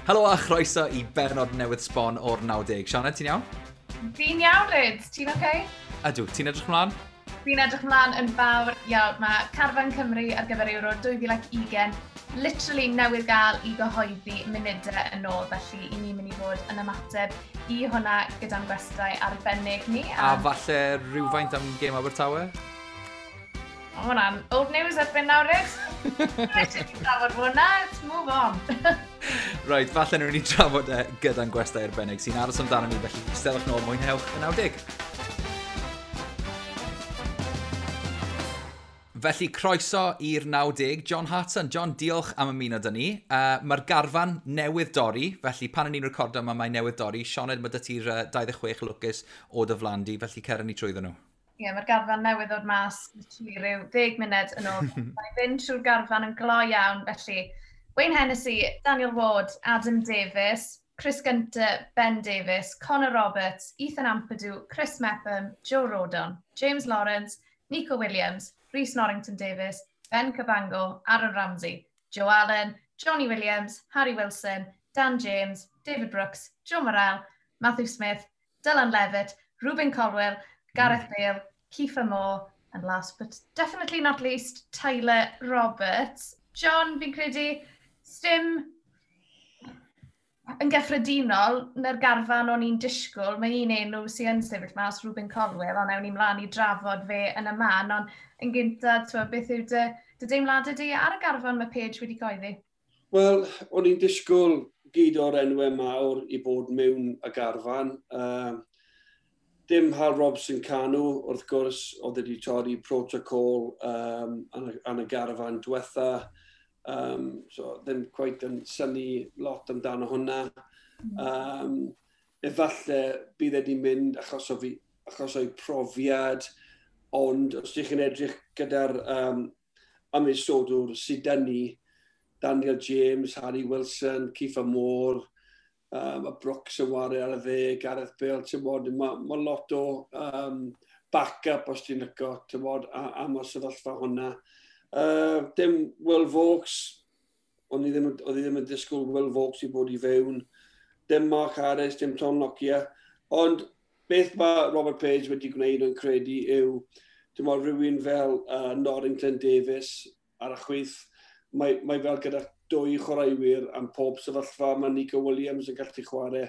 Helo a chroeso i bernod newydd sbon o'r 90. Sioned, ti'n iawn? Fi'n iawn, Ryd. Ti'n oce? Okay? Ydw, ti'n edrych mlaen? Fi'n edrych mlaen yn fawr iawn. Mae Carfan Cymru ar gyfer Euro 2020 literally newydd gael i gyhoeddi munudau yn ôl, felly i ni'n mynd i fod yn ymateb i hwnna gyda'n gwestai arbennig ni. A falle rhywfaint am gêm Abertawe? O, hwnna'n old news erbyn nawr, Rhys. Rhaid i ni trafod hwnna, let's move on. Right, falle nhw'n ni trafod e gyda'n gwestai arbennig sy'n aros amdano ni, felly stelwch nôl, mwynhewch y 90. Felly, croeso i'r 90. John Hartson. John, diolch am ymuno dyn ni. Mae'r garfan newydd dorri, felly pan o'n i'n recordo yma mae newydd dorri. Sioned, mae dy ti'r 26 lwcus o dy flan di, felly cer ni trwyddo nhw. Ie, yeah, mae'r garfan newydd ddod mas literally rhyw 10 munud yn ôl. Mae'n fynd trwy'r garfan yn gloi iawn, felly Wayne Hennessy, Daniel Ward, Adam Davies, Chris Gunter, Ben Davies, Connor Roberts, Ethan Ampadu, Chris Mepham, Joe Rodon, James Lawrence, Nico Williams, Rhys Norrington Davies, Ben Cabango, Aaron Ramsey, Joe Allen, Johnny Williams, Harry Wilson, Dan James, David Brooks, Joe Morrell, Matthew Smith, Dylan Levitt, Ruben Colwell, Gareth Bale, Kiefer Moore, and last but definitely not least, Tyler Roberts. John, fi'n credu, sdim yn gyffredinol, na'r garfan o'n i'n disgwyl, mae un enw sy'n yn sefyll mas, Ruben Colwell, ond ewn ni mlaen i drafod fe yn y man, ond yn gyntaf, twa, beth yw dy deimladau di ar y garfan mae Page wedi coeddi? Wel, o'n i'n disgwyl gyd o'r enwau mawr i bod mewn y garfan. Dim Hal Robson Canu, wrth gwrs, oedd wedi torri protocol yn y garfan diwetha. So ddim quite yn synnu lot amdano hwnna. Efallai bydd wedi mynd achos o'i profiad, ond os ydych chi'n edrych gyda'r ymwysodwr sydd dyn ni, Daniel James, Harry Wilson, Kiefer Moore, a Brooks yn wario ar y dde, Gareth Bale, ti'n bod, mae lot o backup os ti'n lyco, ti'n bod, am y sefyllfa hwnna. Dim Will Vokes, oedd i ddim yn disgwyl Will Vokes i bod i fewn. Dim Mark Harris, dim Tom Lockyer. Ond beth mae Robert Page wedi gwneud yn credu yw, dim ond rhywun fel Norrington Davies ar y chwith, mae fel gyda dwy chwaraewyr am pob sefyllfa. Mae Nico Williams yn gallu chwarae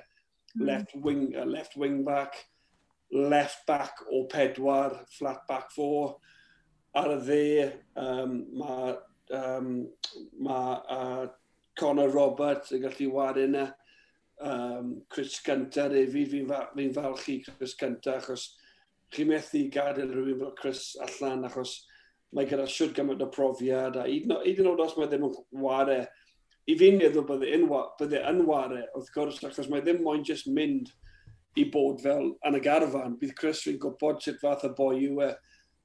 left wing back, left back o 4, flat back 4. Ar y dde, mae Connor Roberts yn gallu wario yna. Chris Gunter hefyd, fi'n falch i Chris Gunter, achos chi'n methu gadael rhywun fel Chris allan, achos mae gyda siwt gymaint o profiad, a hyd yn oed os mae ddim yn ware, i fi'n meddwl bydde yn ware, wrth gwrs, achos mae ddim moyn just mynd i bod fel yn y garfan. Bydd Chris fi'n gwybod sut fath o boi yw e.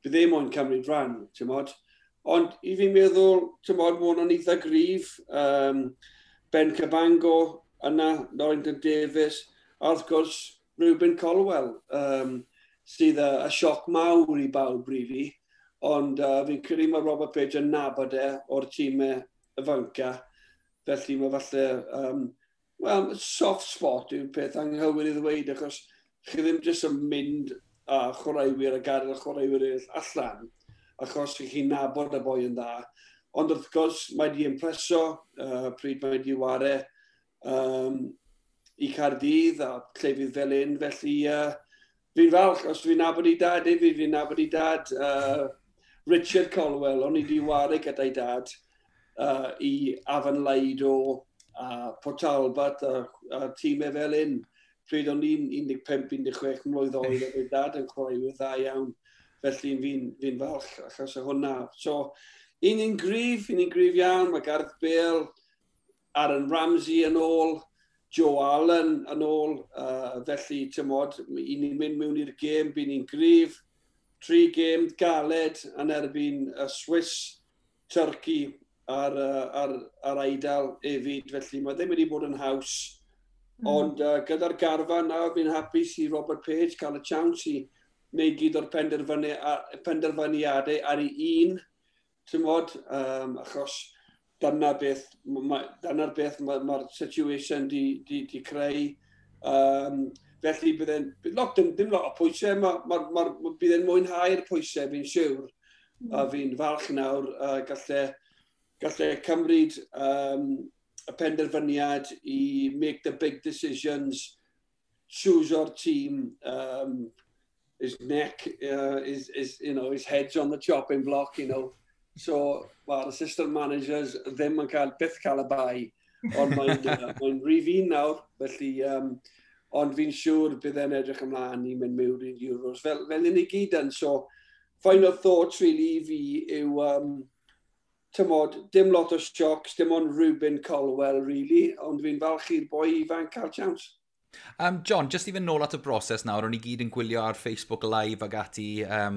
Bydd ddim moyn cymryd rhan, ti'n mod. Ond i fi'n meddwl, ti'n mod, mae hwnna'n eitha gryf. Ben Cabango yna, Norrington Davies, a wrth gwrs, Ruben Colwell, sydd a sioc mawr i bawb, really. Ond fi'n credu mae Robert Page yn nabod e o'r tîmau ifanca. Felly mae falle, well, soft spot yw'r peth anghywir i ddweud, achos chi ddim jyst yn mynd a chwaraewyr a gadael y chwaraewyr eraill allan, achos chi'n nabod y boi yn dda. Ond wrth gwrs, mae di impreso pryd mae di ware i Caerdydd a llefydd fel un. Felly fi'n falch, os fi'n nabod i dad hefyd, fi'n nabod i dad Richard Colwell, o'n i di ware gyda'i dad i Afan Laido a Port Talbot a tîmau fel un. Pryd o'n i'n 15-16 mlwydd oed, oedd ei dad yn chwaraewyr dda iawn. Felly fi'n falch achos o hwnna. So, un ni'n gryf iawn. Mae Gareth Bale, Aaron Ramsey yn ôl, Joe Allen yn ôl. Felly, ti'n mod, un ni'n mynd mewn i'r gêm, bu'n ni'n gryf. 3 gêm galed yn erbyn y Swiss, Turkey a'r Eidal hefyd. Felly, mae ddim wedi bod yn haws. Ond gyda'r garfan nawr, fi'n hapus i Robert Page cael y chance i wneud gyd o'r penderfyniadau ar ei un, ti'n mod, achos Dyna'r beth mae'r ma situation di creu. Felly bydd lot, dim lot o pwysau, ma bydd e'n mwynhau'r pwysau, fi'n siwr. A fi'n falch nawr, gallai cymryd y penderfyniad i make the big decisions, choose our team, his neck, his head's on the chopping block. So, mae'r assistant managers ddim yn cael, byth cael y bai, ond mae'n rhif un nawr, felly, ond fi'n siŵr bydd e'n edrych ymlaen i mynd mewn i'r Euros, fel ni gyd yn. So, final thoughts really i fi yw, tymod, dim lot o shocks, dim ond Rubin Colwell, really, ond fi'n falch i'r boi ifanc cael chance. John, just i fynd nôl at y broses nawr, o'n i gyd yn gwylio ar Facebook Live ag ati, a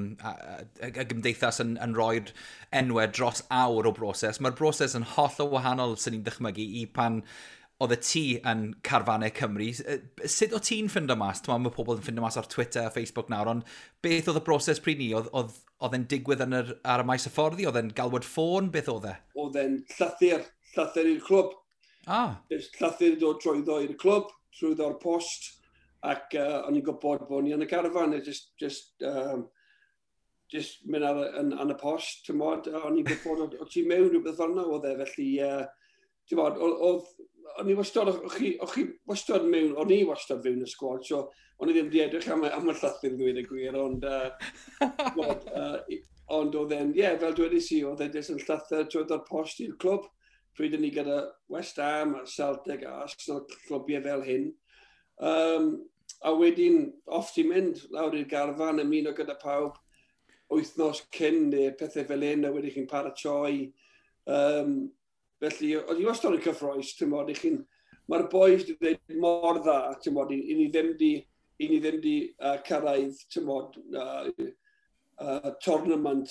gymdeithas yn rhoi'r enwau dros awr o broses. Mae'r broses yn holl o wahanol sy'n ni'n dychmygu i pan oedd y ti yn carfannau Cymru. Sut o ti'n ffindo mas? Mae pobl yn ffindo mas ar Twitter a Facebook nawr, ond beth oedd y broses pryd ni? Oedd e'n digwydd ar y maes hyfforddi? Oedd e'n galwad ffôn? Beth oedd e? Oedd e'n llythyr i'r clwb. Llythyr dod trwyddo i'r clwb, trwyddo'r post, ac o'n i'n gwybod bod ni yn y garfan, just mynd ar y post, ti'n mod, o'n i'n gwybod o ti mewn rhywbeth fel yna oedd e, felly, ti'n mod, o'n i wastad, o'ch chi wastad mewn, o'n i wastad fewn y squad, so o'n i ddim wedi edrych am y llythyr ddweud y gwir, ond, mod, ond oedd e'n, ie, yeah, fel dwedais i, oedd e'n jyst yn llythyr trwyddo'r post i'r clwb, pryd ni gyda West Ham a Celtic a Arsenal, clwbiau fel hyn. A wedyn, off ti'n mynd lawr i'r garfan, ymuno gyda pawb wythnos cyn neu pethau fel hyn, a wedyn chi'n paratoi. Felly, oedd i wastad yn cyffroes, ti'n mod, mae'r boys wedi dweud mor dda, ti'n mod, i ni ddim di cyrraedd, ti'n mod, tournament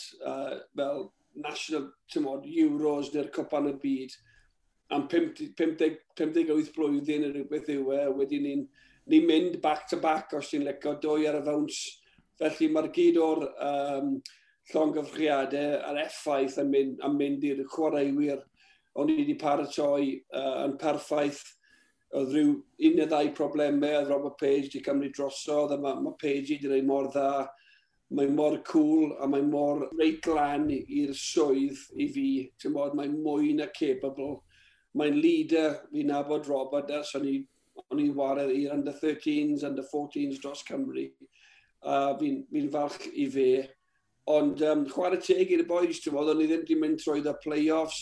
fel national, ti'n mod, Euros neu'r Cwpan y Byd am 50, 58 blwyddyn neu rhywbeth yw e, wedyn ni'n ni mynd back to back os ti'n licio, dwy ar y fawns. Felly mae'r gyd o'r llongyfrchiadau a'r effaith yn mynd i'r chwaraewyr. O'n i wedi paratoi yn perffaith. Oedd rhyw un neu ddau problemau, oedd Robert Page wedi cymryd drosodd, a mae Page wedi gwneud mor dda. Mae mor cool a mae mor reit lan i'r swydd i fi. Ti'n bod, mae'n mwy na capable. Mae'n leader, fi'n nabod Robert ers o'n i'n ware i'r under 13s, under 14s dros Cymru. A fi falch i fe. Ond chwarae teg i'r boys, ti'n bod, o'n i ddim wedi mynd trwy y play-offs,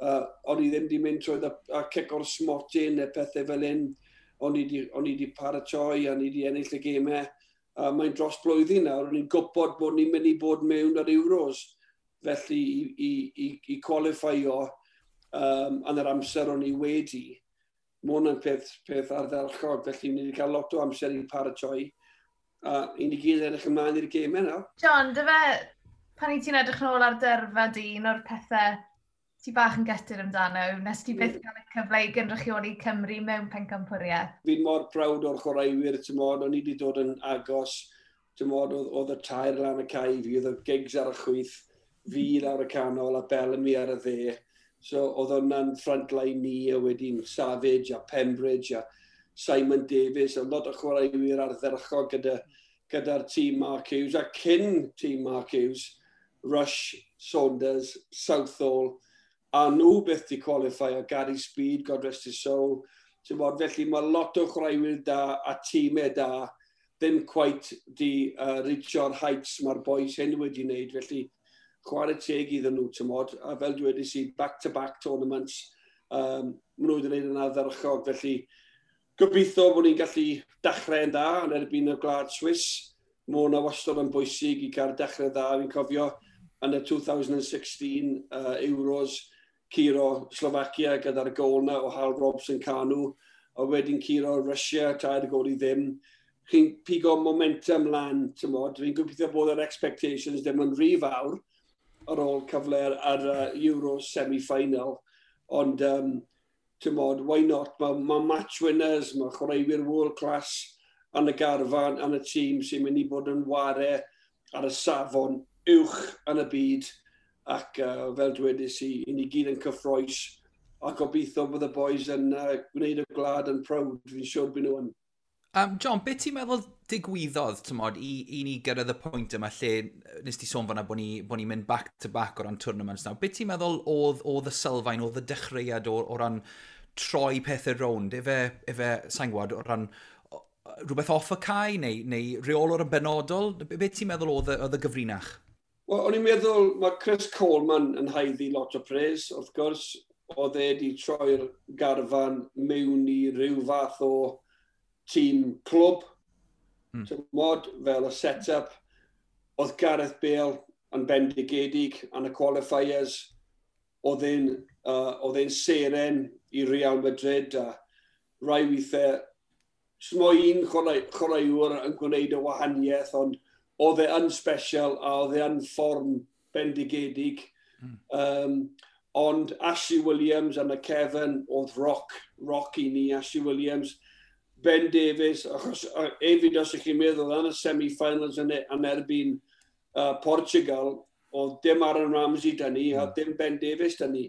o'n i ddim wedi mynd trwy y cic o'r smotyn neu pethau fel hyn. O'n i wedi paratoi, o'n i wedi ennill y gemau. Mae'n dros blwyddyn nawr, o'n i'n gwybod bod ni'n mynd i bod mewn ar Euros. Felly i qualify-o yn yr amser o'n i wedi, mae hwnna'n peth ardderchog, felly ni wedi cael lot o amser i paratoi a i ni gyd edrych ymlaen i'r gemau nawr. John, dy fe, pan i ti'n edrych nôl ar dyrfa di, un o'r pethau ti bach yn gutted amdano, nes ti byth gael y cyfle i gynrychioli Cymru mewn pencampwriaeth? Fi'n mor proud o'r chwaraewyr, ti'n mod, o'n i wedi dod yn agos, ti'n mod, oedd y tair lan y cae fi, oedd y Giggs ar y chwith, fi lawr y canol a Bellamy ar y dde. So oedd hwnna'n front line ni, a wedyn Savage a Pembridge a Simon Davies, a lot o chwaraewyr ardderchog gyda'r tîm Mark Hughes, a cyn tîm Mark Hughes, Rush, Saunders, Southall, a nhw beth di qualify, a Gary Speed, God rest his soul. Ti'n bod, felly mae lot o chwaraewyr da a tîmau da ddim quite di reachio'r heights mae'r boys hyn wedi wneud, felly chwarae teg iddyn nhw, ti'n mod, a fel dwedais i, back-to-back tournaments, maen nhw wedi gwneud yn ardderchog, felly gobeithio bod ni'n gallu dechrau'n dda yn erbyn y Gwlad Swiss. Mae hwnna wastad yn bwysig i cael dechrau dda. Fi'n cofio yn y 2016 Euros, curo Slovakia gyda'r gol na o Hal Robson Kanu, a wedyn curo Russia, 3-0. Chi'n pigo momentum lan, ti'n mod. Fi'n gobeithio bod yr expectations ddim yn rhy fawr ar ôl cyfle ar Euro semi-final. Ond, ti'n mod, why not? Mae match winners, mae chwaraewyr world class yn y garfan, yn y tîm sy'n mynd i bod yn ware ar y safon uwch yn y byd ac fel dwedais i, i ni gyd yn cyffroes. A gobeithio bod y boys yn gwneud y gwlad yn proud, fi'n siŵr byd nhw yn. John, beth ti'n meddwl digwyddodd, tymod, i ni gyrraedd y pwynt yma lle nes ti sôn fan'na bod ni mynd back to back o ran tournaments nawr. Beth ti'n meddwl oedd y sylfaen, oedd y dechreuad o ran troi pethau rownd? Efe, sa'n gwybod, o ran rhywbeth off y cae neu reolwr yn benodol? Beth ti'n meddwl oedd y gyfrinach? Wel, o'n i'n meddwl mae Chris Coleman yn haeddu lot o praise, wrth gwrs. Oedd e wedi troi'r garfan mewn i ryw fath o tîm clwb, mod, fel y set-up. Oedd Gareth Bale yn bendigedig yn y qualifiers. Oedd e'n seren i Real Madrid a rai weithiau smo un chwaraewr yn gwneud y wahaniaeth, ond oedd e yn special a oedd e yn fform bendigedig. Ond Ashley Williams yn y cefn oedd rock i ni, Ashley Williams. Ben Davies, achos hefyd os ych chi'n meddwl yn y semi-finals yn erbyn Portugal, oedd dim Aaron Ramsey 'da ni, a dim Ben Davies 'da ni.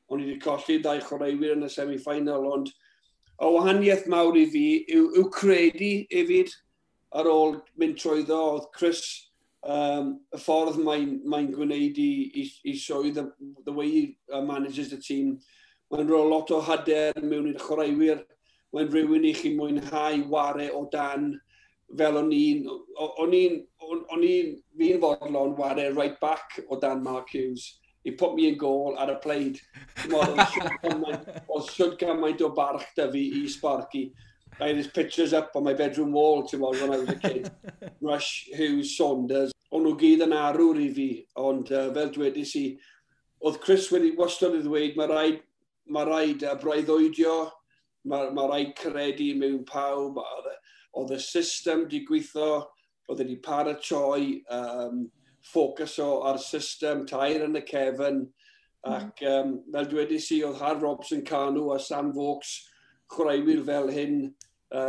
O'n i wedi colli ddau chwaraewyr yn y semi-final, ond y wahaniaeth mawr i fi yw credu hefyd ar ôl mynd trwyddo, oedd Chris, y ffordd mae gwneud i swydd, the way he manages the team, mae'n rhoi lot o hyder mewn i'r chwaraewyr, mae'n rhywun i chi mwynhau ware o dan, fel o'n i'n, fi'n fodlon ware right back o dan Mark Hughes. He put me in goal ar y played. Oedd siwd gymaint o barch da fi i Sparky. I had his pictures up on my bedroom wall, ti'n when I was a kid. Rush, Hughes, Saunders. O'n nhw gyd yn arwr i fi, ond fel dwedais i, oedd Chris wedi wastad i ddweud, mae rhaid breuddwydio, mae rhaid credu mewn pawb, oedd y system di gweithio, oedd wedi paratoi, ffocus o ar system, tair yn y cefn, ac fel dwedais i, oedd Har Robson Kanu a Sam Vokes, chwaraewyr fel hyn,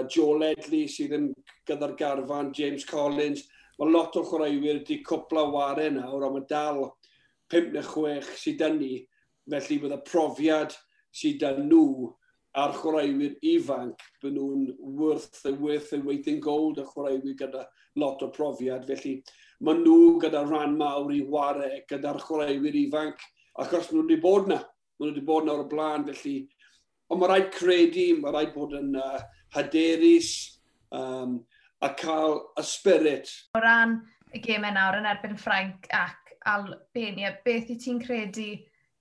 Joe Ledley sydd yn gyda'r garfan, James Collins, mae lot o chwaraewyr wedi cwpla ware nawr, ond mae dal 5 neu 6 sydd 'da ni, felly bydd y profiad sydd 'da nhw a'r chwaraewyr ifanc, byd nhw'n worth the weight in gold, y chwaraewyr gyda lot o profiad. Felly maen nhw gyda rhan mawr i ware gyda'r chwaraewyr ifanc, achos nhw wedi bod na. Maen nhw wedi bod na o'r blaen, felly. Ond mae rhaid credu, mae rhaid bod yn hyderus a cael y spirit. O ran y gemau nawr yn erbyn Ffrainc ac Albania, beth i ti'n credu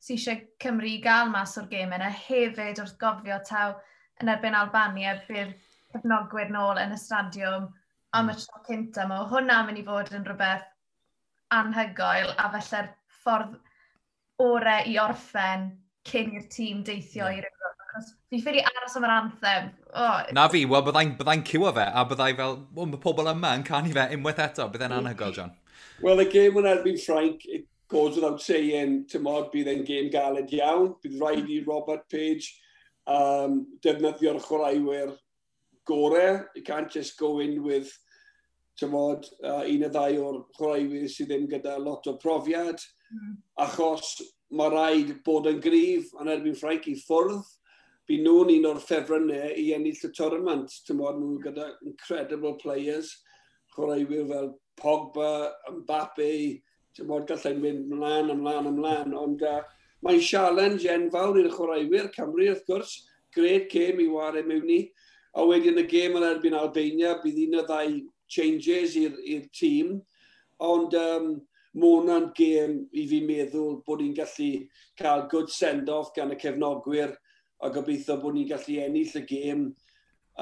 sydd eisiau Cymru i gael mas o'r gemau yna? Hefyd wrth gofio taw yn erbyn Albania bydd cefnogwyr nôl yn y stadiwm am y tro cynta. Mae hwnna'n mynd i fod yn rhywbeth anhygoel a felly'r ffordd orau i orffen cyn i'r tîm deithio i'r Ewrop. Achos fi ffili aros am yr anthem. Oh. Na fi, wel byddai'n byddai ciwo fe, a byddai fel, well, mae pobl yma yn canu fe unwaith eto, byddai'n anhygoel, John. Wel, y gêm yn erbyn Ffrainc, it goes without saying, tymod, bydd e'n gêm galed iawn. Bydd rhaid i Robert Page defnyddio'r chwaraewyr gore. You can't just go in with, tymod, un o ddau o'r chwaraewyr sydd ddim gyda lot o profiad. Achos mae rhaid bod yn gryf yn erbyn Ffrainc i ffwrdd. Bydd nhw'n un o'r ffefrynnau i ennill y tournament. Tymod, nhw gyda incredible players, chwaraewyr fel Pogba, Mbappe, tymod, gallai'n mynd ymlaen, ymlaen, ymlaen. Ond mae'n challenge enfawr i'r chwaraewyr Cymru, wrth gwrs. Great game i ware mewn i. A wedyn y gêm yn erbyn Albania, bydd un o ddau changes i'r tîm. Ond mae hwnna'n gêm i fi meddwl bod ni'n gallu cael good send-off gan y cefnogwyr a gobeithio bod ni'n gallu ennill y gêm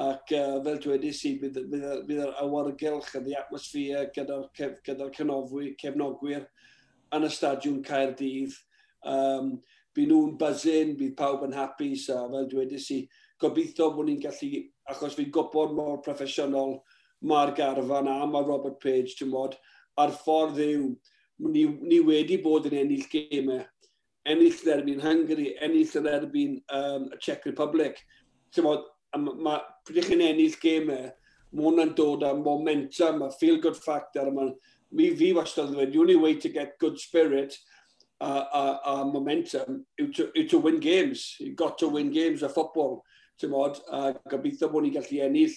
ac fel dwedais i, bydd yr awyrgylch a the atmosphere gyda'r gyda cefnogwyr yn y stadiwm Caerdydd. Bydd nhw'n buzzing, bydd pawb yn hapus a fel dwedais i, gobeithio bod ni'n gallu, achos fi'n gwybod mor proffesiynol mae'r garfan a mae Robert Page, ti'n mod, a'r ffordd yw, ni wedi bod yn ennill gemau, ennill yn erbyn Hungary, ennill yn erbyn y Czech Republic. Ti'n mod, pryd chi'n ennill gemau, mae hwnna'n dod â momentum, a feel-good factor. A ma, mi fi wastad yn dweud, the only way to get good spirit a momentum yw to win games. You've got to win games of football. Ti'n, a gobeithio bod ni'n gallu ennill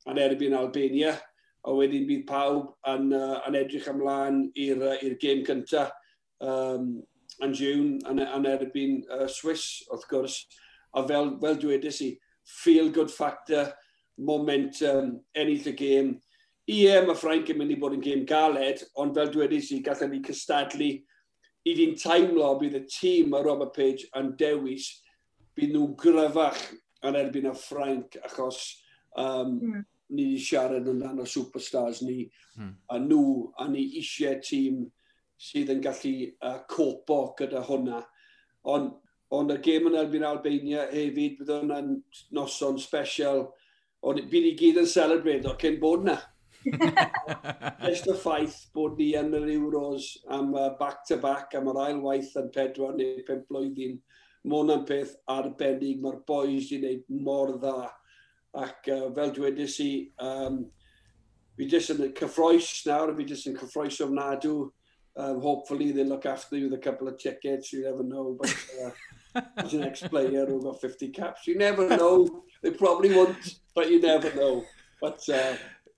yn erbyn Albania, a wedyn bydd pawb yn edrych ymlaen i'r gêm cyntaf yn June yn erbyn Swiss, wrth gwrs. A fel dwedais i, feel good factor, momentum, ennill y gêm. Ie, mae Ffrainc yn mynd i bod yn gêm galed, ond fel dwedais i, gallwn ni cystadlu. I fi'n teimlo bydd y tîm mae Robert Page yn dewis, bydd nhw'n gryfach yn erbyn y Ffrainc, achos ni wedi siarad amdano superstars ni, a nhw, a ni eisiau tîm sydd yn gallu copo gyda hwnna. Ond y gêm yn erbyn Albania hefyd, bydd hwnna'n noson special, ond bydd ni gyd yn celebrate o cyn bod na. Just y ffaith bod ni yn yr Euros am back-to-back, am yr ail waith yn 4 neu 5 blwyddyn, mae hwnna'n peth arbennig, mae'r boys wedi gwneud mor dda. Ac fel dwedais i, fi jyst yn cyffroes nawr, fi jyst yn cyffroes ofnadw. Hopefully they look after you with a couple of tickets, you never know. But as an ex-player who got 50 caps, you never know. They probably won't, but you never know. But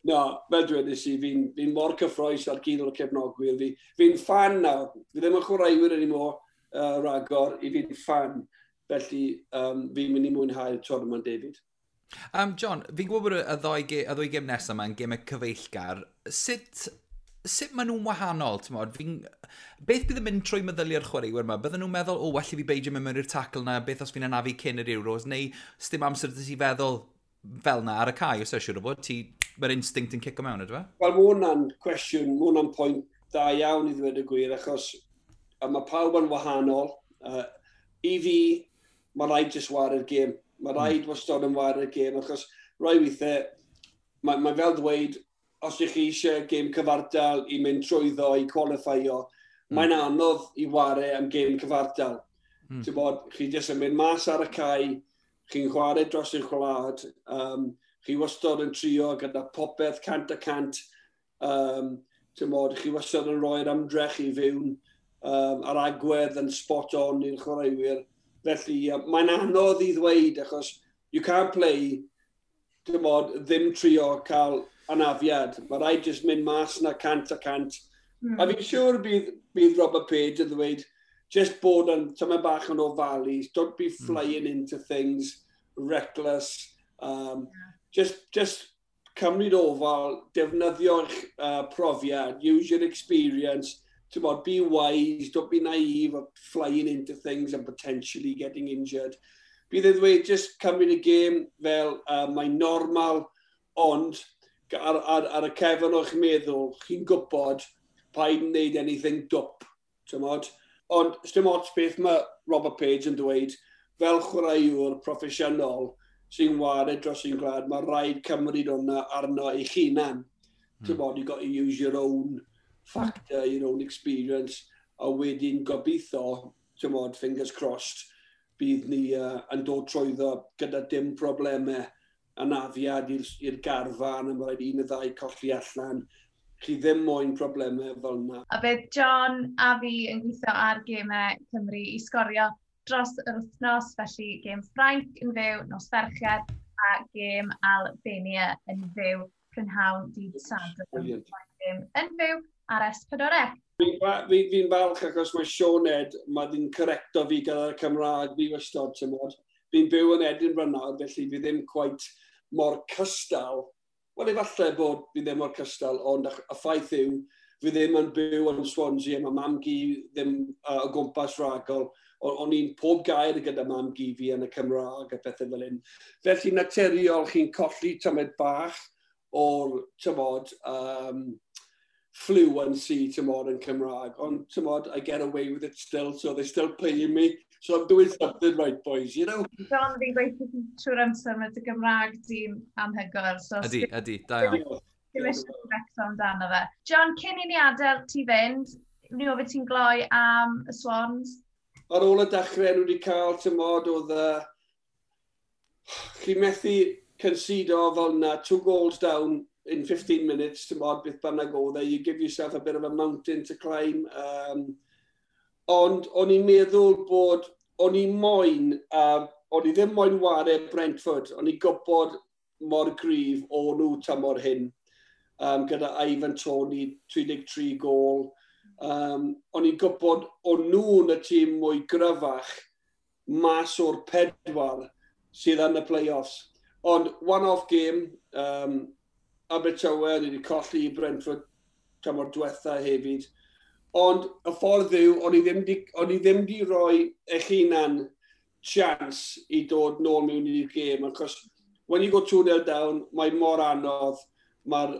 no, fel dwedais i, fi mor cyffroes ar gyd o'r cefnogwyr. Fi'n fan nawr. Fi ddim yn chwaraewyr anymore ragor, i fi'n fan. Felly fi'n mynd i mwynhau'r tournament, David. John, fi'n gwybod bod y ddwy gêm nesaf yma yn gemau cyfeillgar. Sut maen nhw'n wahanol? Beth bydd yn mynd trwy meddyliau'r chwaraewyr yma? Bydden nhw'n meddwl, "O, well i fi beidio mynd mewn i'r tackle na, beth os fi'n anafu cyn yr Euros?" Neu sdim amser ti feddwl fel na ar y cae, os eisiau siŵr o fod, mae'r instinct yn cico mewn, ydw e? Wel, mae hwnna'n cwestiwn, mae hwnna'n pwynt da iawn i ddweud y gwir, achos a mae pawb yn wahanol. I fi, mae rhaid jyst ware'r gêm. Mae rhaid wastad yn ware'r gêm, achos rai weithiau, mae fel dweud, os ydych chi eisiau gêm cyfartal i mynd trwyddo, i qualifyo, mae'n anodd i ware am gêm cyfartal. Ti'n bod, chi jyst yn mynd mas ar y cae, chi'n chwarae dros eich gwlad, chi wastad yn trio gyda popeth 100%, ti'n bod, chi wastad yn rhoi'r ymdrech i fewn, a'r agwedd yn spot on i'r chwaraewyr. Felly, mae'n anodd i ddweud, achos you can't play, ti'n bod, ddim trio cael anafiad. Mae rhaid jyst mynd mas na 100%. A fi'n siŵr bydd Robert Page yn ddweud, just bod yn tyma bach yn ofalus, don't be flying into things, reckless. Just cymryd ofal, defnyddio'ch profiad, use your experience, ti'n, be wise, don't be naive of flying into things and potentially getting injured. Bydd e ddweud, just cymryd y gêm fel mae'n normal, ond ar y cefn o'ch meddwl, chi'n gwybod paid yn neud anything dwp, ti'n. Ond dim ots beth mae Robert Page yn dweud, fel chwaraewr proffesiynol sy'n ware dros ein gwlad, mae rhaid cymryd hwnna arno eich hunan. Ti'n bod, you got to use your own factor, your own experience, a wedyn gobeithio, ti'n bod, fingers crossed, bydd ni yn dod trwyddo gyda dim problemau anafiad i'r garfan, a mae rhaid un y ddau colli allan. Chi ddim moyn problemau fel yna. A bydd John a fi yn gweithio ar gemau Cymru i Sgorio dros yr wythnos, felly gêm Ffrainc yn fyw nos Fercher a gêm Albania yn fyw prynhawn dydd Sadwrn. Yn fyw ar S4C. Fi falch achos mae Sioned, mae di'n correcto fi gyda'r Cymraeg fi wastad, ti'n mod. Fi'n byw yn Edinburgh nawr, felly fi ddim quite mor cystal. Wel, efallai bod fi ddim mor cystal, ond y ffaith yw, fi ddim yn byw yn Swansea, mae mam-gu ddim o gwmpas ragol. O'n i'n pob gair gyda mam-gu fi yn y Cymraeg a pethau fel hyn. Felly naturiol chi'n colli tymed bach o'r, tymod, fluency, tymod, yn Cymraeg. Ond, tymod, I get away with it still, so they're still paying me. So I'm doing something right, boys. John, fi'n gweithio trwy'r amser, mae dy Gymraeg di'n anhygoel. So ydy, da iawn. Dim eisiau becso amdano fe. John, cyn i ni adael ti fynd, ni ofyn ti'n gloi am y Swans? Ar ôl y dechrau nhw wedi cael, tymod, oedd chi methu concedo fel na, two goals down in 15 minutes, tymod, beth bynnag oedd e, you give yourself a bit of a mountain to climb. Um, Ond o'n i'n meddwl bod, o'n i moyn, o'n i ddim moyn ware Brentford, o'n i'n gwybod mor gryf o nhw tymor hyn, gyda Ivan Toney, 33 gol. O'n i'n gwybod o nhw'n y tîm mwy gryfach mas o'r pedwar sydd yn y play-offs. Ond one-off game, Abertawe, ni wedi colli i Brentford tymor diwetha hefyd. Ond y ffordd yw, o'n i ddim di roi eich hunan chance i dod nôl mewn i'r gêm, achos when you go 2-0 down, mae mor anodd, mae'r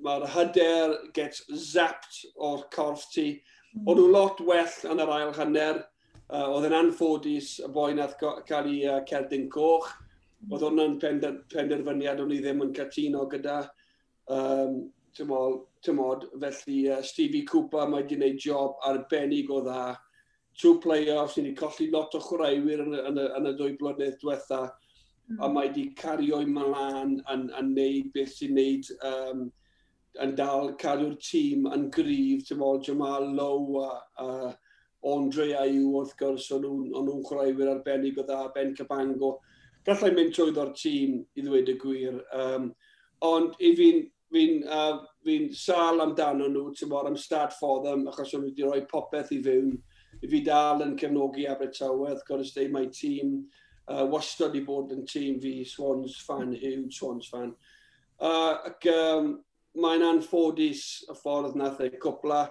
ma hyder gets zapped o'r corff ti. O'n nhw lot well yn yr ail hanner, oedd yn anffodus y boi nath cael ei cerdyn coch. Oedd hwnna'n penderfyniad o'n i ddim yn cytuno gyda. Tymod, felly Stevie Cooper mae wedi gwneud job arbennig o dda. Two play-offs, ni wedi colli lot o chwaraewyr yn y 2 blynedd diwetha, a mae wedi cario'i mlaen yn neud beth sy'n neud, yn dal cadw'r tîm yn gryf, tymod, Jamal Lowe a Andre Ayew wrth gwrs, o'n nhw'n chwaraewyr arbennig o dda, Ben Cabango. Gallai mynd trwyddo'r tîm i ddweud y gwir. Ond i fi'n sâl amdano nhw, tymod, I'm sad for them, achos o'n nhw wedi rhoi popeth i fewn. I fi dal yn cefnogi Abertawe, wrth gwrs, they my team. Wastad i bod yn tîm fi, Swans fan, huge Swans fan. Ac mae'n anffodus y ffordd nath e cwpla,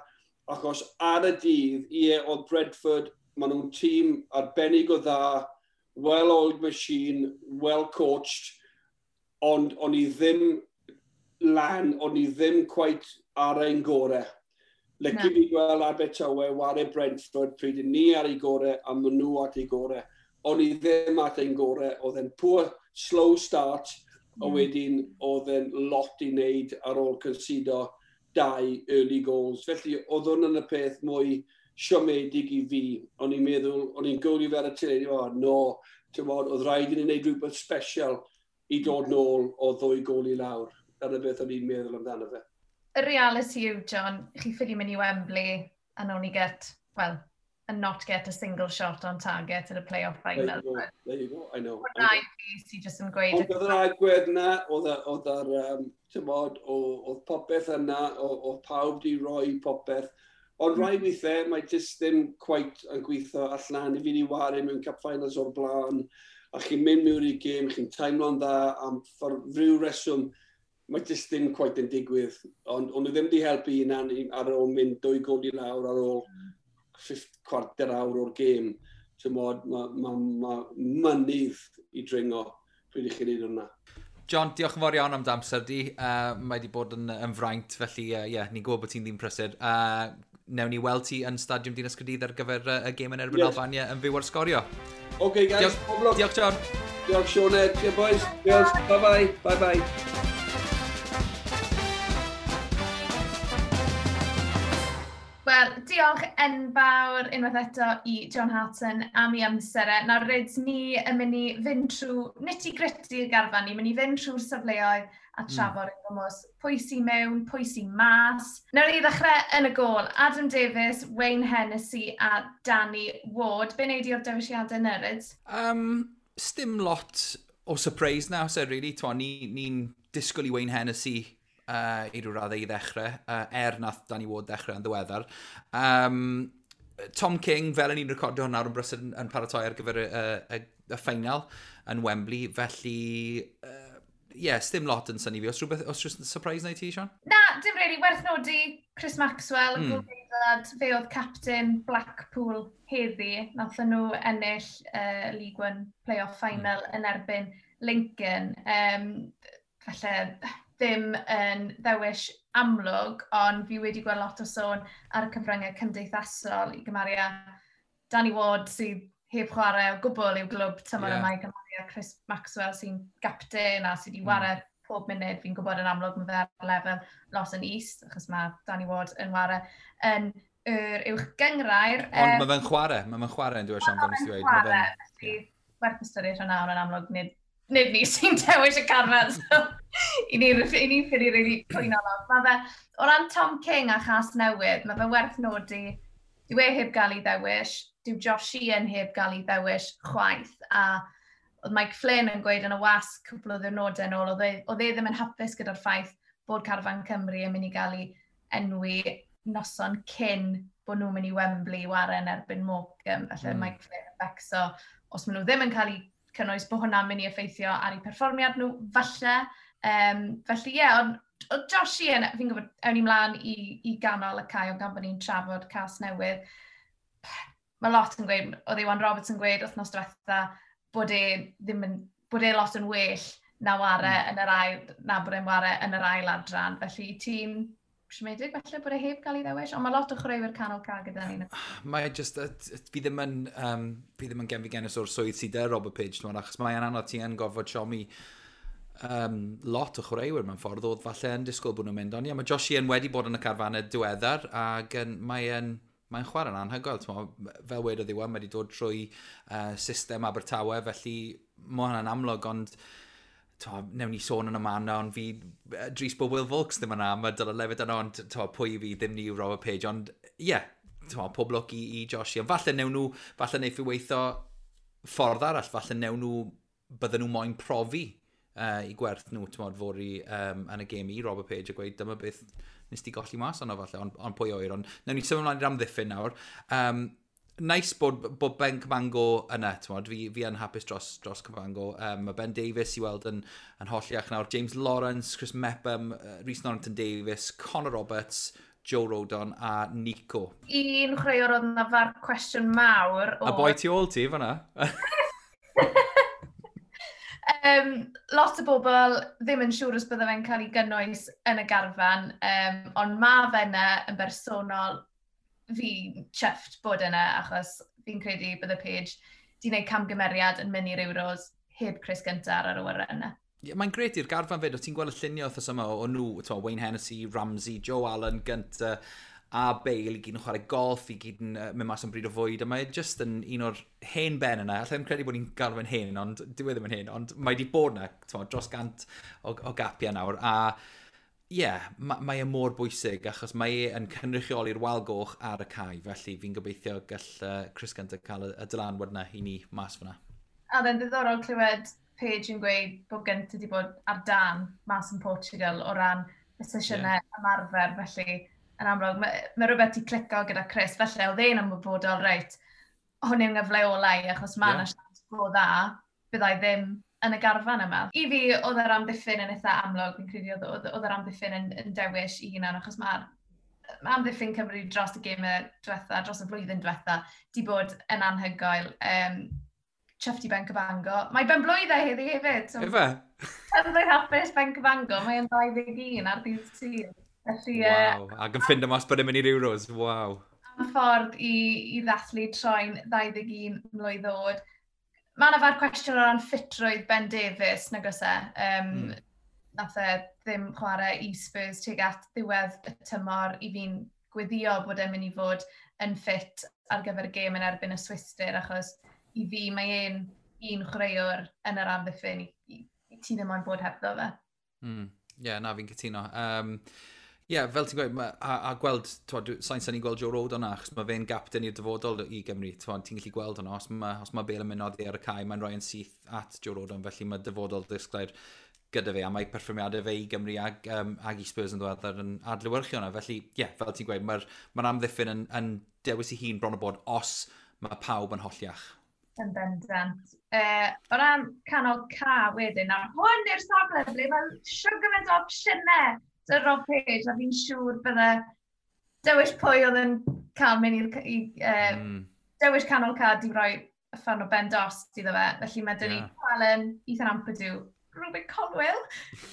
achos ar y dydd, ie, oedd Brentford, maen nhw'n tîm arbennig o dda, well-oiled machine, well-coached, ond o'n i ddim lan, o'n i ddim quite ar ein gore. Lyci fi gweld Abertawe ware Brentford pryd ni ar ei gore a maen nhw at ei gore. O'n i ddim at ein gore, oedd e'n poor, slow start, a wedyn oedd e'n lot i wneud ar ôl concedo 2 early goals. Felly oedd hwn yn y peth mwy siomedig i fi. O'n i'n meddwl, o'n i'n gwylio fe ar y teledu, o no, tymod, oedd rhaid i ni wneud rhywbeth special i dod nôl o 2 gôl i lawr. Dyna beth o'n i'n meddwl amdano fe. Y reality yw, John, chi ffili mynd i Wembley and only get, well, and not get a single shot on target in a play-off final. There you go, I know. Hwna i fi sy'n just yn gweud. Ond oedd yr agwedd yna, oedd oedd popeth yna, oedd pawb di roi popeth. Ond rai weithiau, mae jyst ddim quite yn gweithio allan. I fi di ware mewn Cup Finals o'r blaen, a chi'n mynd mewn i'r gêm, chi'n teimlo'n dda am rhyw reswm, mae jyst ddim quite yn digwydd. Ond nhw ddim di helpu hunan ar ôl mynd 2 gôl i lawr ar ôl 45 awr o'r gêm. Tymod, ma mynydd i dringo pryd i chi'n neud hwnna. John, diolch yn fawr iawn am dy amser di. Mae wedi bod yn fraint, felly yeah, ni'n gwybod bod ti'n ddim prysur. Newn ni weld ti yn Stadiwm Dinas Caerdydd ar gyfer y gêm yn erbyn Albania yn fyw ar Sgorio. OK, guys. Diolch, diolch John. Diolch, Sioned. Cheers, boys. Diolch. Bye-bye. Bye-bye. Wel, diolch enfawr unwaith eto i John Hartson am ei amser e. Nawr, rydyn ni yn mynd i fynd trwy nitty-gritty y garfan, ni'n mynd i fynd trwy'r safleoedd a trafod yn gwmws. Pwy sy'n mewn, pwy sy'n mas. Nawr i ddechrau yn y gôl, Adam Davies, Wayne Hennessy a Danny Ward. Be wneud i o'r dewisiadau yna, Ryd? Sdim lot o surprise now, so really. Ni'n disgwyl i Wayne Hennessy i ryw raddau i ddechrau, nath Danny Ward ddechrau yn ddiweddar. Tom King, fel yn ni'n recordio hwn nawr yn brysur yn paratoi ar gyfer y ffeinal yn Wembley, felly, yeah, sdim lot yn synnu fi. Os rhywbeth, os rhywbeth surprise na i ti, Sean? Na, dim really. Werth nodi Chris Maxwell, fe oedd captain Blackpool heddi. Nathon nhw ennill League One play-off final yn erbyn Lincoln. Falle ddim yn ddewis amlwg, ond fi wedi gweld lot o sôn ar y cyfryngau cymdeithasol i gymharu â Danny Ward sydd heb chwarae o gwbl i'w glwb tymor yma i gymharu â Chris Maxwell sy'n gapten a sydd wedi ware pob munud. Fi'n gwybod yn amlwg mae fe ar lefel lot yn is, achos mae Danny Ward yn ware yn yr uwch gynghrair. Ond mae fe'n chwarae, mae fe'n chwarae yn dweud, Sian, fel nes i ddweud. Mae fe'n chwarae, werth ystyried hwnna, ond yn amlwg nid ni sy'n dewis y carfan, so i ni'n ffili really cwyno lot. Mae fe, o ran Tom King a Chas Newydd, mae fe werth nodi Dyw e heb gael ei ddewis, dyw Josh Sheehan heb gael ei ddewis chwaith, a oedd Mike Flynn yn gweud yn y wasg cwpl o ddiwrnodau yn ôl, oedd e ddim yn hapus gyda'r ffaith bod carfan Cymru yn mynd i gael ei enwi noson cyn bod nhw'n mynd i Wembley i ware yn erbyn Morecambe. Felly Mike Flynn yn becso, os maen nhw ddim yn cael eu cynnwys, bod hwnna'n mynd i effeithio ar eu perfformiad nhw, falle. Felly ie, yeah, ond o Josh Sheehan, fi'n gwybod, ewn ni mlaen i ganol y cae, ond gan bod ni'n trafod cast newydd, mae lot yn gweud, oedd Iwan Roberts yn gweud wythnos diwetha, bod e ddim yn, bod e lot yn well na ware yn yr ail, na bod e'n ware yn yr ail adran. Felly ti'n siomedig falle bod e heb gael ei ddewis, ond mae lot o chwaraewyr canol cae gyda ni. Mae just, fi ddim yn genfigennus o'r swydd sydd 'da Robert Page, ti'n, achos mae'n anodd, ti yn gorfod siomi lot o chwaraewyr mewn ffordd oedd falle yn disgwyl bod nhw'n mynd. Ond ie, mae Josh Sheehan wedi bod yn y carfannau diweddar ac mae'n chwarae'n anhygoel. Fel wedodd Iwan, mae wedi dod trwy system Abertawe, felly mae hwnna'n amlwg, ond to, newn ni sôn yn y man, ond fi, dris bod Will Vaulks ddim yna, mae Dylan Levitt yna, ond to, pwy fi ddim ni yw Robert Page, ond ie, yeah, to, pob lwc i Josh. Ond falle newn nhw, falle neith i weithio ffordd arall, falle newn nhw, bydden nhw moyn profi i gwerth nhw, ti'n fory yn y gêm i Robert Page a gweud dyma beth nes ti golli mas ono falle, ond pwy oer. Ond newn ni symud ymlaen i'r amddiffyn nawr. Nice bod Ben Cabango yna, t'mod, fi yn hapus dros Cabango. Mae Ben Davies i weld yn holliach nawr. James Lawrence, Chris Mepham, Rhys Norrington Davies, Connor Roberts, Joe Rodon a Nico. Un chwaraewr oedd yna far cwestiwn mawr. A boi tu ôl ti fan'na. Lot o bobl ddim yn siŵr os bydde fe'n cael ei gynnwys yn y garfan, ond mae fe yna yn bersonol, fi'n chuffed bod yna, achos fi'n credu bydde Page di wneud camgymeriad yn mynd i'r Euros heb Chris Gunter ar yr awyren yna. Yeah, mae'n gret i'r garfan fyd, o ti'n gweld y lluniau wythnos yma o nhw, t'mo, Wayne Hennessy, Ramsey, Joe Allen, Gunter a Bale i gyd yn chwarae golf, i gyd yn mynd mas am bryd o fwyd, a mae just yn un o'r hen ben yna. Alla i'm credu bod ni'n galw fe'n hen, ond dyw e ddim yn hen, ond mae wedi bod yna, t'mo, dros 100 o gapiau nawr, a ie, yeah, mae e mor bwysig, achos mae e yn cynrychioli'r wal goch ar y cae, felly fi'n gobeithio gall Chris Gunter cael y dylanwad yna i ni mas fyna. A oedd e'n ddiddorol clywed Page yn gweud bod Gunter wedi bod ar dan mas yn Portugal o ran y sesiynau ymarfer, felly yn amlwg, mae rhywbeth 'di clicio gyda Chris, felly oedd e'n ymwybodol, reit, hwn yw'n gyfle ola i, achos mae yna siawns go dda, byddai ddim yn y garfan yma. I fi, oedd yr amddiffyn yn eitha amlwg, fi'n credu oedd yr amddiffyn yn dewis i hunan, achos mae'r ma amddiffyn Cymru dros y gemau diwetha, dros y flwyddyn diwetha, di bod yn anhygoel. Chuffed i Ben Cabango. Mae ben blwydd e heddi hefyd. So, Ife? Ben blwydd hapus Ben Cabango. Mae e'n 21 ar ddydd Sul. Felly, Waw. Ac yn ffindo mas bod e'n mynd i'r Euros. Waw. Am ffordd i ddathlu troi'n 21 mlwydd oed. Mae yna fawr cwestiwn o ran ffitrwydd Ben Davies, nag oes e? Nath e ddim chwarae i Spurs tuag at ddiwedd y tymor, i fi'n gweddio bod e'n mynd i fod yn ffit ar gyfer y gêm yn erbyn y Swistir, achos i fi mae e'n un chwaraewr yn yr amddiffyn i ti ddim ond bod hebddo fe. Yeah, na, fi'n cytuno. Yeah, fel ti'n gweud, a gweld, sa'n syni gweld Joe Rodon yna, achos mae fe'n gapten i'r dyfodol i Gymru. Ti'n gallu gweld hwnna, os ma Bale yn mynd oddi ar y cae, mae'n rhoi yn syth at Joe Rodon, felly mae dyfodol disglair gyda fe, a mae perfformiadau fe i Gymru ag i Spurs yn ddiweddar yn adlewyrchu hwnna. Felly, ie, yeah, fel ti'n gweud, mae'r amddiffyn yn dewis i hun bron o bod os mae pawb yn holliach. Yn bendant. O ran canol ca wedyn, nawr hwn yw'r safle ble mae siwr gymaint o opsiynau 'da Rob Page, a fi'n siŵr bydde dewis pwy oedd yn cael mynd i'r dewis canol ca di roi uffern o ben dost iddo fe. Felly mae dyn ni Allen, Ethan Ampadu, Rubin Colwill,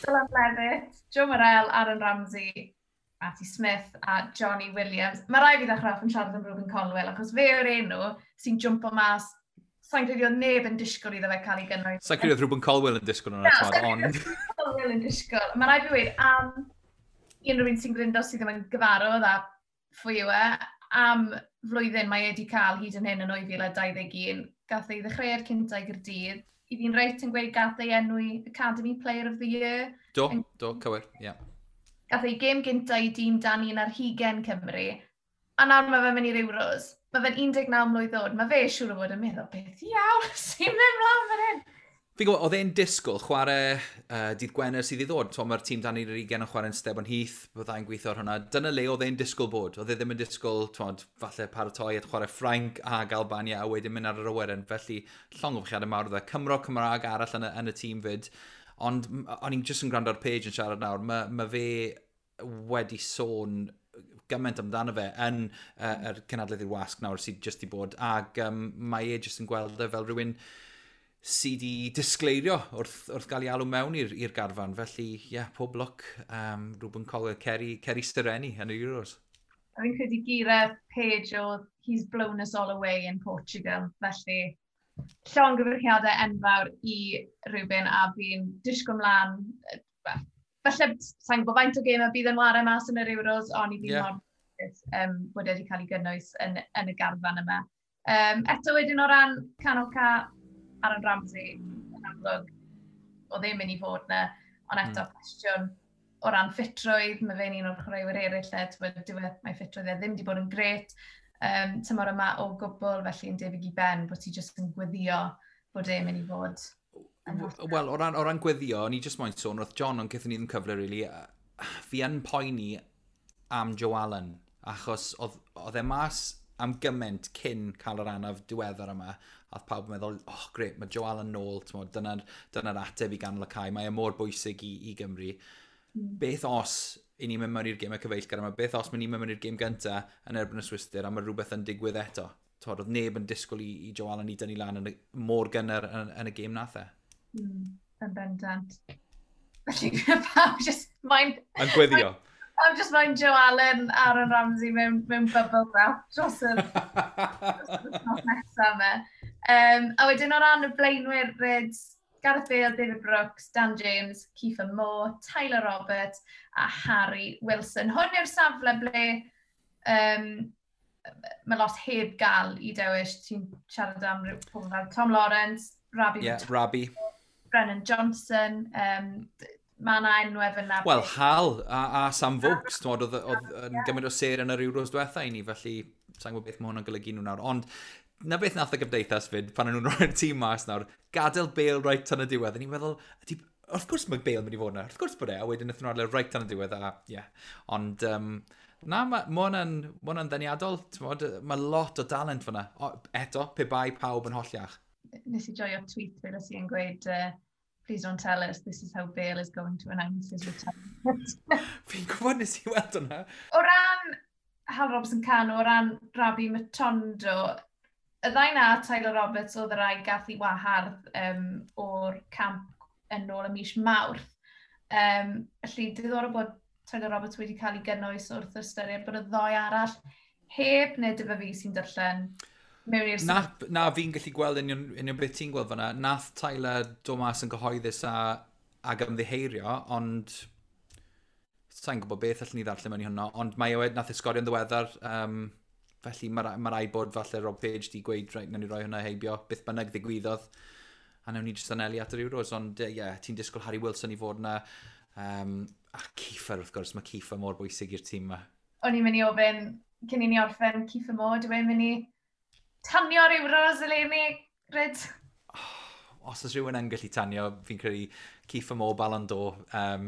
Dylan Levitt, Joe Morrell, Aaron Ramsey, Matty Smith a Johnny Williams. Mae rai fi ddechrau off yn siarad am Rubin Colwill, achos fe yw'r enw sy'n jwmpo mas. Sa'n credu oedd neb yn disgwyl iddo fe cael ei gynnwys. Sa'n credu oedd Rubin Colwill yn disgwyl hwnna, Na, sa'n ond credu oedd Colwill yn disgwyl. Mae rhaid fi weud am unrhyw un sy'n gryndo sydd ddim yn gyfarwydd â phwy yw e, am flwyddyn mae e wedi cael hyd yn hyn yn 2021. Gath ei ddechreuad cynta i Gaerdydd. I fi'n reit yn gweud gath ei enwi Academy Player of the Year. Do, do, cywir, ie. Yeah. Gath ei gêm gynta i dîm dan 21 Cymru. A nawr mae fe'n mynd i'r Euros. Mae fe'n 19 mlwydd oed. Mae fe siŵr o fod yn meddwl, beth iawn sy'n mynd mlaen fan hyn? Fi'n gwybod, oedd e'n disgwyl chwarae dydd Gwener sydd i ddod. Mae'r tîm dan i'r 20 yn chwarae'n Stebon Heath, byddai'n gweithio ar hwnna. Dyna le oedd e'n disgwyl bod. Oedd e ddim yn disgwyl, twod, falle paratoi at chwarae Ffrainc ag Albania a wedyn mynd ar yr awyren. Felly, llongyfarchiadau mawr oedd e. Cymro Cymraeg arall yn y tîm fyd. Ond o'n i'n jyst yn gwrando ar Page yn siarad nawr. Mae fe wedi sôn gymaint amdano fe yn yr cynadledd i'r wasg nawr sydd jyst i bod. Ac mae e jyst yn gweld e fel rhywun sydd wedi disgleirio wrth gael ei alw mewn i'r garfan. Felly, ie, yeah, pob lwc. Reuben Coler, Ceri Stireni yn y Euros. A fi'n credu geiriau Page oedd "He's blown us all away in Portugal." Felly, llongyfarchiadau enfawr i Reuben a fi'n disgwyl mlaen. Well, falle, sa'n gwybod faint o gêm y bydd yn ware mas yn yr Euros, ond i fi mor bod wedi cael ei gynnwys yn y garfan yma. Eto wedyn o ran canol cae, Aaron Ramsey, yn amlwg, oedd ddim mynd i fod na, ond eto cwestiwn o ran ffitrwydd, mae fe'n un o'r chwaraewyr eraill lle, t'wod, mae ffitrwydd e ddim wedi bod yn gret tymor yma o gwbl, felly yn debyg i Ben, bod ti jyst yn gweddio bod e'n mynd i fod yn hollol. Wel, o ran gweddio, o'n i jyst moyn sôn wrth John, ond gaethon ni ddim cyfle, really. Fi yn poeni am Joe Allen, achos oedd e mas am gymaint cyn cael yr anaf diweddar yma, a oedd pawb yn meddwl, "Oh, great, mae Joe Allen nôl, dyna ateb i ganol y cae, mae e mor bwysig i Gymru." Beth os i ni'n mynd mewn i'r gêm y cyfeillgar yma, beth os ni'n mynd mewn i'r gêm gynta yn erbyn y Swistir a mae rhywbeth yn digwydd eto? Twod, oedd neb yn disgwyl i Joe Allen i dynnu lan mor gynnar yn y gêm nath e. Yn bendant. Felly, pawb just mae'n Yn gweddio. Pawb just mae'n Joe Allen, Aaron Ramsey mewn bubble wrap dros yr wythnos nesaf yma. A wedyn o ran y blaenwyr, Reds, Gareth Bale, David Brooks, Dan James, Kiefer Moore, Tyler Roberts a Harry Wilson. Hwn yw'r safle ble mae lot heb gael i dewis. Ti'n siarad am ryw pobl fel Tom Lawrence, Rabi, Yeah, Rabi. Brennan Johnson, mae yna enwau fyna. Wel, Hal a Sam Vokes, t'mod, oedd yn gymaint o ser yn yr Euros diwetha i ni, felly sa'n gwybod beth mae hwnna'n golygu nhw nawr. Ond na beth nath y gymdeithas fyd, pan o'n nhw'n rhoi'r tîm mas nawr, gadael Bale right tan y diwedd. A ni'n meddwl, ydy, wrth gwrs mae Bale yn mynd i fod yna, wrth gwrs bod e, a wedyn wnaethon nhw adael right tan y diwedd, a ie. Yeah. Ond, na, ma hwnna'n ddeniadol, t'mod, mae lot o dalent fyna. O, eto, pe bai pawb yn holliach. Nes i joio tweet fe nes i yn gweud, "Please don't tell us, this is how Bale is going to announce his retirement." Fi'n gwybod, nes i weld hwnna. O ran Hal Robson-Kanu, o ran Rabi Matondo, y ddau na, Tyler Roberts oedd y rai gath i wahardd o'r camp yn ôl y mis Mawrth. Felly, diddorol bod Tyler Roberts wedi cael ei gynnwys wrth ystyried bod y ddou arall heb, neu dyfa fi sy'n darllen mewn i'r Na, fi'n gallu gweld union beth ti'n gweld fyna. Nath Tyler dod mas yn gyhoeddus ag ymddiheirio, ond sa'n gwybod beth allwn ni ddarllen mewn i hwnna, ond mae e nath e sgorio'n ddiweddar, felly mae rhaid bod falle Rob Page di gweud, "Reit, nawn ni roi hwnna heibio, beth bynnag ddigwyddodd, a nawn ni jyst anelu at yr Euros," ond ie, yeah, ti'n disgwyl Harry Wilson i fod yna, a Kiefer wrth gwrs, mae Kiefer mor bwysig i'r tîm yma. O'n i'n mynd i ofyn, cyn i ni orffen, Kiefer Moore, dwi'n mynd i tanio'r Euros eleni, Ryd? Os oes rhywun yn gallu tanio, fi'n credu Kiefer Moore, Ballon d'Or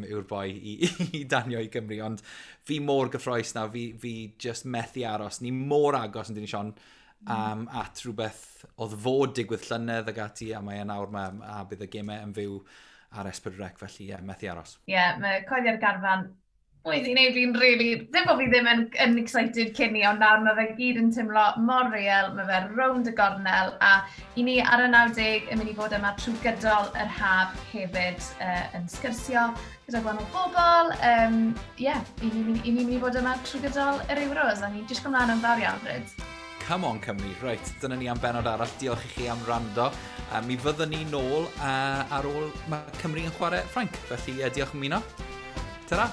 yw'r boi i danio i Gymru, ond fi mor gyffroes nawr, fi just methu aros. Ni mor agos yn dyn ni, Sion, at rhywbeth oedd fod digwydd llynedd ag ati, a mae e nawr ma, a bydd y gemau yn fyw ar S4C, felly ie, yeah, methu aros. Ie, yeah, mae coeddi'r garfan wedi gwneud fi'n really, ddim bod fi ddim yn excited cyn ni, ond nawr mae fe gyd yn teimlo mor real, mae fe rownd y gornel, a i ni ar y 90 yn mynd i fod yma trwy gydol yr haf hefyd yn sgyrsio gyda gwahanol bobl. Yeah, i ni'n mynd i fod yma trwy gydol yr Euros, a ni'n disgwyl mlaen yn fawr iawn, Ryd. Come on Cymru, reit, dyna ni am benod arall. Diolch i chi am wrando. Mi fyddwn ni nôl ar ôl mae Cymru yn chwarae Ffrainc, felly diolch am ymuno. Ta-ra!